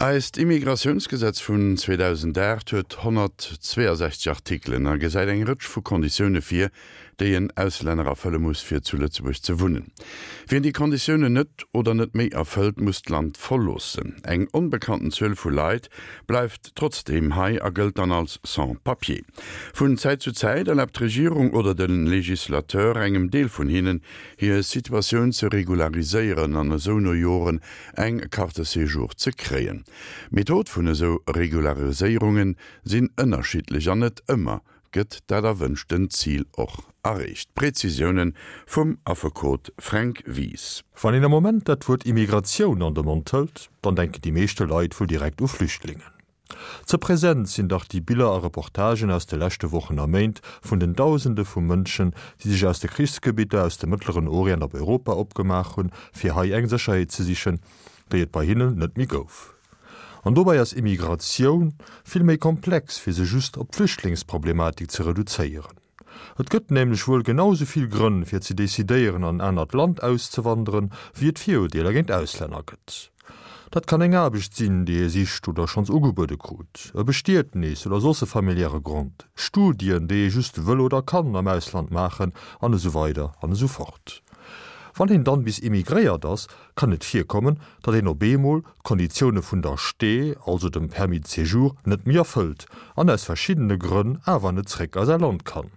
Eist Immigratiounsgesetz vun 2008 huet 162 Artikelen a gesäit eng Rëtsch vu Konditioune vir, déi en Auslänner erfëlle muss, fir zu Lëtzebuerg ze wunnen. Wien déi Konditiounen net oder net méi erfëllt, muss d'Land verloossen. Eng onbekannten Zuel vu Leit bleift trotzdeem hei a gëllt dann als Sans-papiers. Vun Zäit zu Zäit erlaabt d'Regierung oder de Legislateur engem Deel vun hinnen, hir Situatioun ze regulariséieren an esou no Joren eng Carte séjour ze kréien. D'Method vun esou Regulariséierunge sinn ënnerschiddlech an net ëmmer gëtt dat erwënschten Zil och erreecht. Prezisioune vum Affekot Fränk Wies. Wann een am Moment dat Wuert Immigratioun an de Mond hëlt, dann denken déi meeschte Leit wuel direkt u Flüchtlingen. Ze present sinn dach déi Biller a Reportagen aus de leschte Wochen a Méint vun den Dausende vu Mënschen, déi sech aus de Krichsgebitter aus dem Mëttleren Orient op Europa opgemaach hunn, fir hei eng Sécherheet ze sichen, déi et bei hinnen net méi gouf. An dobäi ass Immigratioun vill méi komplex, fir se just op d'Flüchtlingsproblematik ze reduzéieren. Et gëtt nämlech wuel genau sou vill Grënn fir ze decidéieren an en anert Land auszewanderen, wéi et Virurdeeler géint Auslänner gëtt. Dat kann eng Aarbecht sinn, déi ee sicht oder schonns ugebuede krut, e Bestietnis oder soss e familiäre Grond, Studien, déi ee just wëll oder kann am Ausland maachen, an esou weider an esou fort. Wann een dann bis immigréiert ass, kann et virkommen, datt een op eemol d'Konditioune vun der Ste, also dem Permis de séjour, net méi erfëllt an aus verschiddene Grënn awer net zréck a säi Land kann.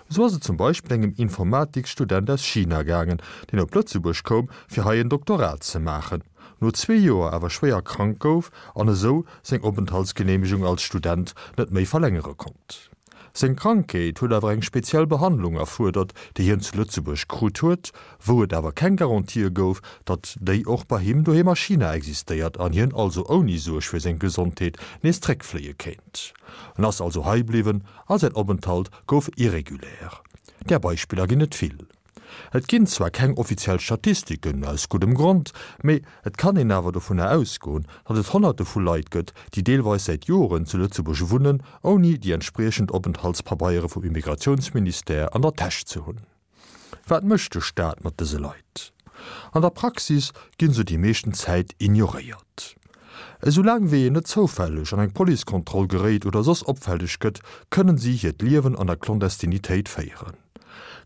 Esou ass et zum Beispill engem Informatiksstudent aus China gaangen, deen op Lëtzebuerg koum, fir hei en Doktorat ze maachen, no zwee Joer awer schwéier krank gouf an esou seng Openthaltsgeneemegung als Student net méi verlängere konnt. Seng Krankheet huet awer eng speziell Behandlung erfuerdert, déi hien zu Lëtzebuerg krut huet, wou et awer keng Garantië gouf, datt déi och bei him doheem a China existéiert an hien also ouni Suerg fir seng Gesondheet nees zréckfléie kéint. En ass also hei bliwwen a säin Openthalt gouf irregulär. Där Beispiller ginn et vill. Et ginn zwar keng offiziell Statistiken, aus guddem Grond, mee et kann een awer dovunner ausgoen, datt et Honnerte vu Leit gëtt, déi deelweis säit Joren zu Lëtzebuerg wunnen, ouni déi entspriechend Openthaltspabeiere vum Immigratiounsministère an der Täsch ze hunn. Wat mécht de Staat mat dëse Leit? An der Praxis ginn se déi meeschten Zäit ignoréiert. Esoulaang wéi een net zoufälleg an eng Policekontroll geréit oder soss opfälleg gëtt, kënnen si hiert Liewen an der Clandestinitéit féieren.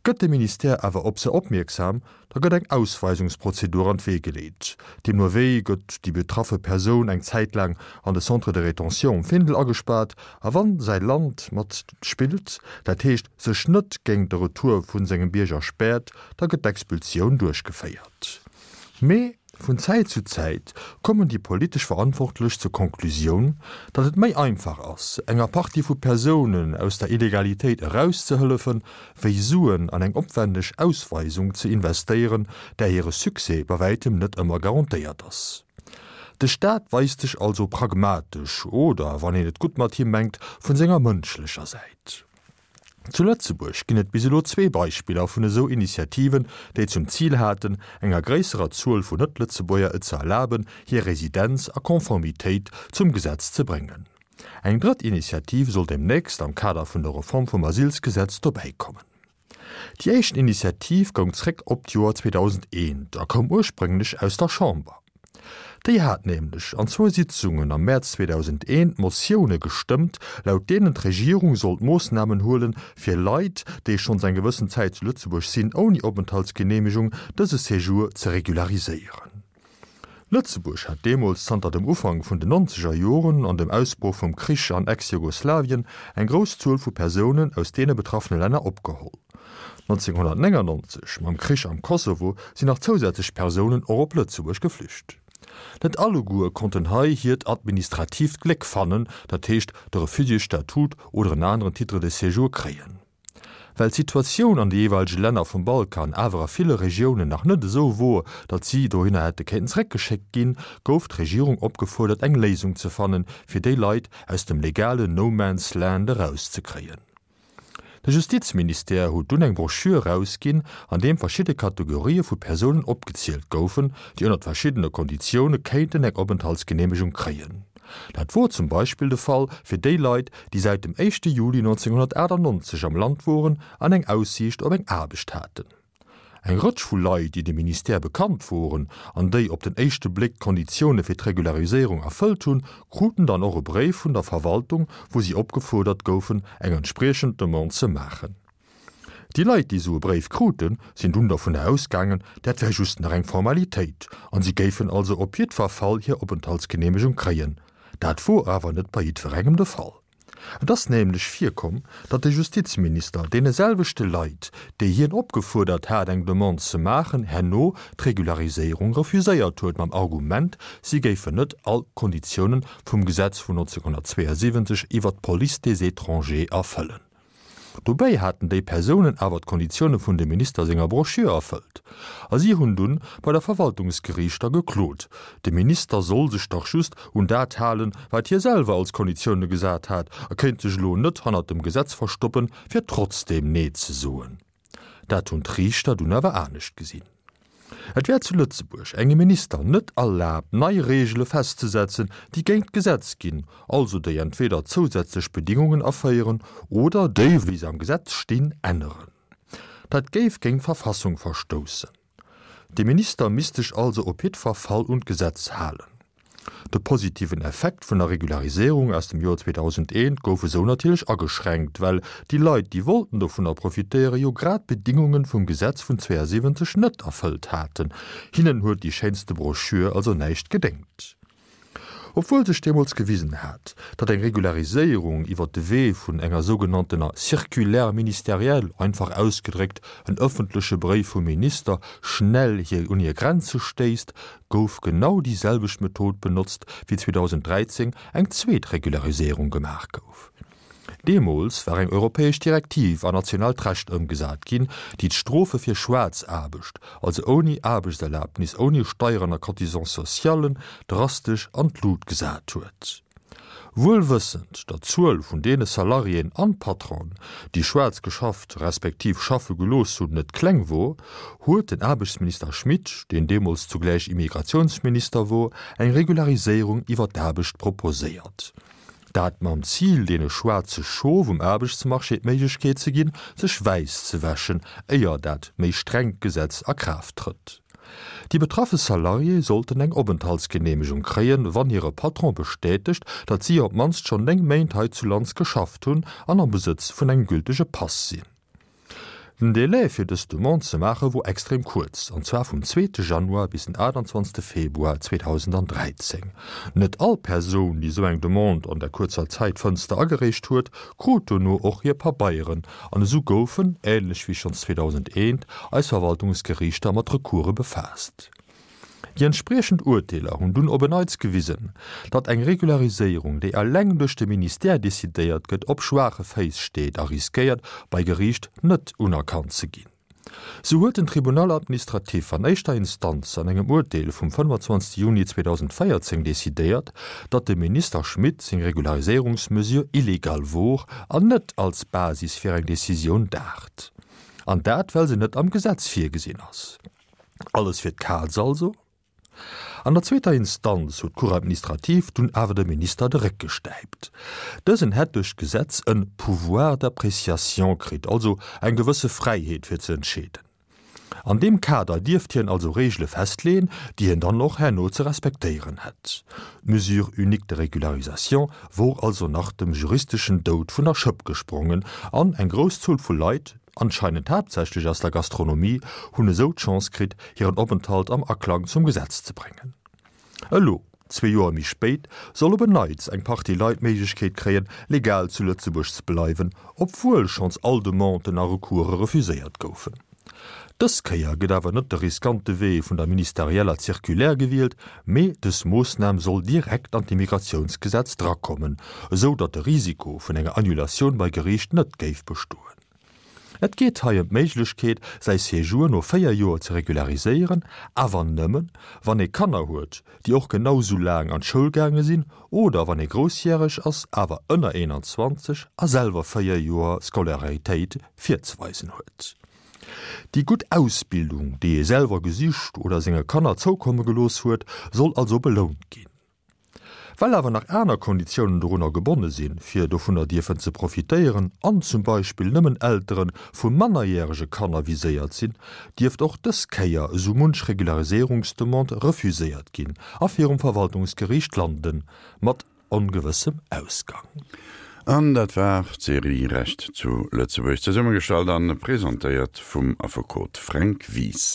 Gëtt de Ministère awer op se opmierksam, da gëtt eng Ausweisungsprozedur an d'Wee geleet. Deemno wéi gëtt déi betraffe Persoun eng Zäit laang an de Centre de rétention um Findel agespaart a wann säi Land mat spillt, dat heescht sech net géint de Retour vu sengem Bierger späert, da gëtt d'Expulsioun duerchgeféiert. Mee vun Zäit zu Zäit kommen déi politesch Verantwortlech zur Konklusioun, datt et méi einfach ass, enger Partie vu Persounen aus der Illegalitéit erauszehëllefen, wéi Suen an eng opwändeg Ausweisung ze investéieren, där hire Succès bei wäitem net ëmmer garantéiert ass. De Staat weist sech also pragmatesch oder, wann een et gutt mat him mengt, vun senger mënschlecher Säit. Zu Lëtzebuerg ginn et bis elo zwee Beispiller vun esou Initiativen, déi zum Zil haten, enger gréisserer Zuel vun Net-Lëtzebuerger et ze erlaben, hir Residenz a Konformitéit zum Gesetz ze bréngen. Eng drëtt Initiativ soll deemnächst am Kader vun der Reform vum Asylsgesetz dobäikommen. Déi éischt Initiativ goung zréck op d'Joer 2001 a koum ursprénglech aus der Chamber. Déi hat nämlech an zwou Sitzungen am Mäerz 2001 Motioune gestëmmt, laut deenen d'Regierung sollt Moossnamen huelen, fir Leit, déi schonns eng gewëssen Zäit zu Lëtzebuerg sinn, ouni Openthaltsgeneemegung, dëse Séjour ze regulariséieren. Lëtzebuerg hat deemools zanter dem Ufank vun den nonzeger Joren an dem Ausbroch vum Krich an Ex-Jugoslawien eng grouss Zuel vu Persounen aus deene betraffene Länner opgeholl. 1999, mam Krich am Kosovo, sinn nach zousätzlech Persounen och op Lëtzebuerg geflücht. Net alleguer konnten hei hiert administratiivt Gléck fannen, dat heescht de Refugiésstatut oder en aneren Titre de séjour kréien. Well d'Situatioun an de jeeweilege Länner vum Balkan awer a ville Regiounen nach net esou wor, datt si dohinner hätte kéinten zeréckgeschéckt ginn, gouf d'Regierung opgefuerdert eng Léisung ze fannen, fir déi Leit aus dem legalen No Man's Land erauszekréien. De Justizministère huet dunn eng Broschür erausginn, an deem verschidde Kategorië vu Persounen opgezielt goufen, déi ënnert verschiddene Konditioune kéinten eng Openthaltsgeneemegung kréien. Dat wor zum Beispill de Fall fir déi Leit, déi säit dem éischte Juli 1998 am Land woren an eng Aussiicht op eng Aarbecht haten. Eng Rëtsch vu Leit, déi dem Ministère bekannt woren an déi op den éischte Bléck d'Konditioune fir d'Regulariséierung erfëllt hunn, kruten dann och e Bréif vun der Verwaltung, wou si opgefuerdert goufen, eng entspriechend Demande ze maachen. Déi Leit, déi esou e Bréif kruten, sinn dunn dovunner ausgaangen, dat wär just nach eng Formalitéit an si géifen also op jiddwer Fall hir Openthaltsgeneemegung kréien. Dat wor awer net bei jiddwerengem de Fall. Et ass nämlech virkomm, datt de Justizminister deene selwechte Leit, déi hien opgefuerdert hat eng Demande ze maachen, herno d'Regulariséierung refuséiert huet mam Argument, si géifen net all d'Konditiounen vum Gesetz vun 1972 iwwert d'Police des étrangers erfëllen. Dobäi haten déi Persounen awer d'Konditioune vun dem Minister senger Broschür erfëllt. A si hunn dunn bei der Verwaltungsgeriichter geklot, de Minister soll sech dach just un dat halen, wat hie selwer als Konditioune gesat hat a kéint sech elo net hannert dem Gesetz verstoppen, fir trotzdeem Nee ze soen. Dat hunn d'Riichter dunn awer anescht gesinn. Et wär zu Lëtzebuerg engem Minister net erlaabt, nei Reegele festzesetzen, déi géint d'Gesetz ginn, also déi entweder zousätzlech Bedingungen aféieren oder déi, wéi se am Gesetz stinn, änneren. Dat géif géint d'Verfassung verstoussen. De Minister misst sech also op jiddwer Fall un d'Gesetz halen. De positiven Effekt vun der Regulariséierung aus dem Joer 2001 gouf esou natierlech ageschränkt, well déi Leit, déi wollten dovunner profitéieren, jo grad d'Bedingunge vum Gesetz vun 72 net erfëllt haten. Hinnen huet déi schéinste Broschür also näischt gedéngt. Obwuel sech deemools gewisen hat, datt eng Regulariséierung iwwer de Wee vun enger sougenanntener Circulaire ministérielle, einfach ausgedréckt en ëffentleche Bréif vum Minister, schnell hir un hir Grenze stéisst, gouf genau déi selwecht Method benotzt, wéi 2013 eng zweet Regulariséierung gemaach gouf. Deemools war eng europäesch Direktiv an nationaalt Recht ëmgesat ginn, déi d'Strofe fir Schwaarzaarbecht, also ouni Aarbechtserlabnis, ouni Steieren a Cotisants socialen, drastesch an d'Lut gesat huet. Wuel wëssend, datt d'Zuel vun deene Salariéen an Patronen, déi schwaarz geschafft respektiv schaffe gelooss hunn, net kleng wor, huet den Aarbechtsminister Schmit, deen deemools zugläich Immigratiounsminister wor, eng Regulariséierung iwwer d'Aarbecht proposéiert. Dat mam Zil, deene schwaarze Schof um Aarbechtsmarché d'Méiglechkeet ze ginn, sech wäiss ze wäschen, éier dat méi strengt Gesetz a Kraaft trëtt. Déi betraffe Salariéë sollten eng Openthaltsgeneemegung kréien, wann hire Patron bestätegt, datt si op d'mannst schonn 9 Méint hei zu Lands geschafft hunn an am Besëtz vun engem gültege Pass sinn. Den Delai fir dës Demande ze maache wor extrem kuerz, an zwar vum zweete Januar bis den 28 Februar 2013. Net all Persoun, déi esou eng Demande an der kuerzer Zäitfënster agereecht huet, krut dono och hir Pabeieren An esou goufen, ähnlech wéi schonns 2001, eis Verwaltungsgeriichter mat Recourse befaasst. Déi entspriechend Urteeler hunn dunn op en Neits gewisen, datt eng Regulariséierung, déi eleng duerch de Ministère decidéiert gëtt, op schwaache Féiss steet a riskéiert, bei Geriicht net unerkannt ze ginn. Sou huet den Tribunal administratif an éischter Instanz an engem Urteel vum 25 Juni 2014 decidéiert, datt dem Minister Schmit seng Regulariséierungsmesure illegal wor an net als Basis fir eng Decisioun daacht. An dat well se net am Gesetz virgesinn ass. Alles fir d'Kaz also? An der zweeter Instanz huet d'Cour administrative dunn awer dem Minister de Réck gestäipt. Dësen hätt duerch d'Gesetz en Pouvoir d'appréciation kritt, also eng gewësse Fräiheet fir ze entscheeden. An deem Kader dierft hien also Reegele festleeën, déi hien dann och herno ze respektéieren hätt. D'Mesure unique de régularisation wor also nach dem juristeschen Doud vun der Schëpp gesprongen an eng grouss Zuel vu Leit, anscheinend haaptsächlech aus der Gastronomie, hunn esou d'Chance kritt, hiren Openthalt am Aklang zum Gesetz ze bréngen. Elo, zwee Joer méi spéit, soll op en Neits eng Partie Leit d'Méiglechkeet kréien, legal zu Lëtzebuerg ze bleiwen, obwuel schonns all Demanden a Recourse refuséiert goufen. Dës Kéier gëtt awer net de riskante Wee vun der ministerieller Circulaire gewielt, mee dës Moossnam soll direkt an d'Immigratiounsgesetz drakommen, esou datt de Risiko vun enger Annulatioun bei Geriicht net géif bestoen. Et geet hei ëm d'Méiglechkeet, säi Séjour no 4 Joer ze regulariséieren, awer nëmmen, wann ee Kanner huet, déi och genau sou laang an d'Schoul gaange sinn, oder wann ee groussjäreg ass, awer ënner 21 a selwer 4 Joer Scolaritéit virzeweisen huet. Déi gutt Ausbildung, déi ee selwer gesicht oder senge Kanner zoukomme gelooss huet, soll also belount ginn. Well awer nach aner Konditiounen dorunner gebonne sinn, fir dovunner dierfen ze profitéieren, an zum Beispill nëmmen Eltere vu mannerjärege Kanner viséiert sinn, dierft och dës Kéier esou munch Regulariséierungsdemande refuséiert ginn a virum Verwaltungsgeriicht landen, mat ongewëssem Ausgang. An dat war d'Serie Recht zu Lëtzebuerg, zesummegestallt an presentéiert vum Affekot Fränk Wies.